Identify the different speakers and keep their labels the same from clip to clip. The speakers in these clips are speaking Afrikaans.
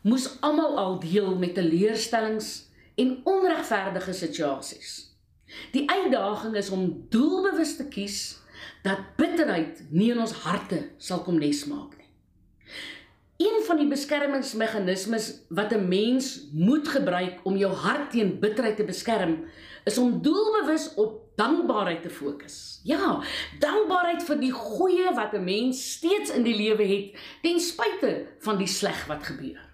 Speaker 1: moes almal al deel met teleurstellings en onregverdige situasies. Die uitdaging is om doelbewus te kies dat bitterheid nie in ons harte sal kom nesmaak nie. Een van die beskermingsmeganismes wat 'n mens moet gebruik om jou hart teen bitterheid te beskerm, is om doelbewus op dankbaarheid te fokus. Ja, dankbaarheid vir die goeie wat 'n mens steeds in die lewe het, ten spyte van die sleg wat gebeur.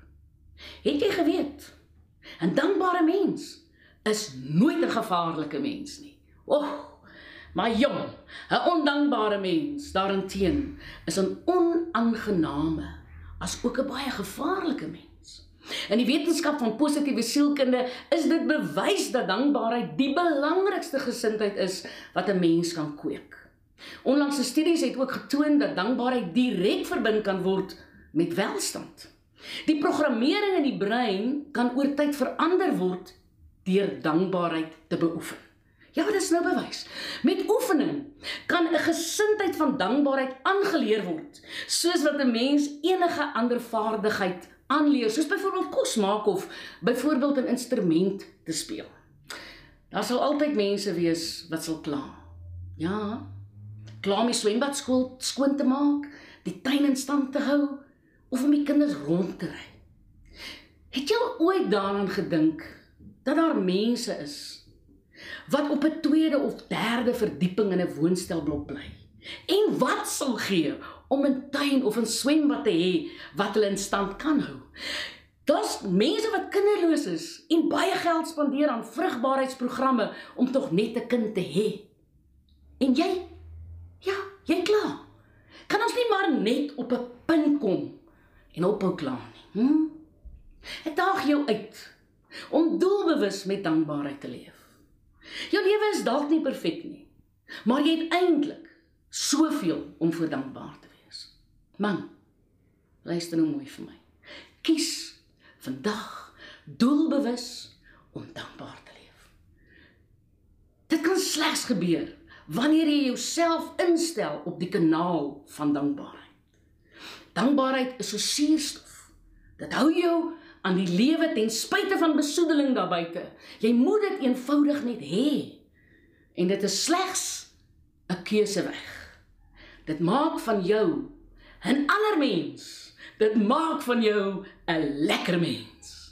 Speaker 1: Het jy geweet, 'n dankbare mens is nooit 'n gevaarlike mens nie. Maar jong, 'n ondankbare mens daarenteen is 'n onaangename, as ook 'n baie gevaarlike mens. In die wetenskap van positiewe sielkunde is dit bewys dat dankbaarheid die belangrikste gesindheid is wat 'n mens kan kweek. Onlangse studies het ook getoon dat dankbaarheid direk verbind kan word met welstand. Die programmering in die brein kan oor tyd verander word deur dankbaarheid te beoefen. Ja, dit is nou bewys. Met oefening kan 'n gesindheid van dankbaarheid aangeleer word, soos wat 'n mens enige ander vaardigheid aanleer, soos byvoorbeeld kos maak of byvoorbeeld 'n instrument te speel. Daar sal altyd mense wees wat sal kla. Ja, kla om die swembad skoon te maak, die tuin in stand te hou, of om die kinders rond te ry. Het jy al ooit daaraan gedink dat daar mense is wat op 'n tweede of derde verdieping in 'n woonstelblok bly, en wat sal gee om 'n tuin of 'n swembad te hê wat hulle in stand kan hou? Daar's mense wat kinderloos is en baie geld spandeer aan vrugbaarheidsprogramme om tog net 'n kind te hê. En jy? Ja, jy kla. Kan ons nie maar net op 'n punt kom en ophou kla nie? Ek daag jou uit om doelbewus met dankbaarheid te leef. Jou lewe is dalk nie perfek nie, maar jy het eintlik soveel om voor dankbaar te wees. Man, luister nou mooi vir my. Kies vandag doelbewus om dankbaar te leef. Dit kan slegs gebeur wanneer jy jouself instel op die kanaal van dankbaarheid. Dankbaarheid is so suurstof. Dit hou jou aan die lewe ten spyte van besoedeling daarbuite. Jy moet dit eenvoudig net hê. En dit is slegs 'n keuseweg. Dit maak van jou 'n ander mens. Dit maak van jou 'n lekker mens.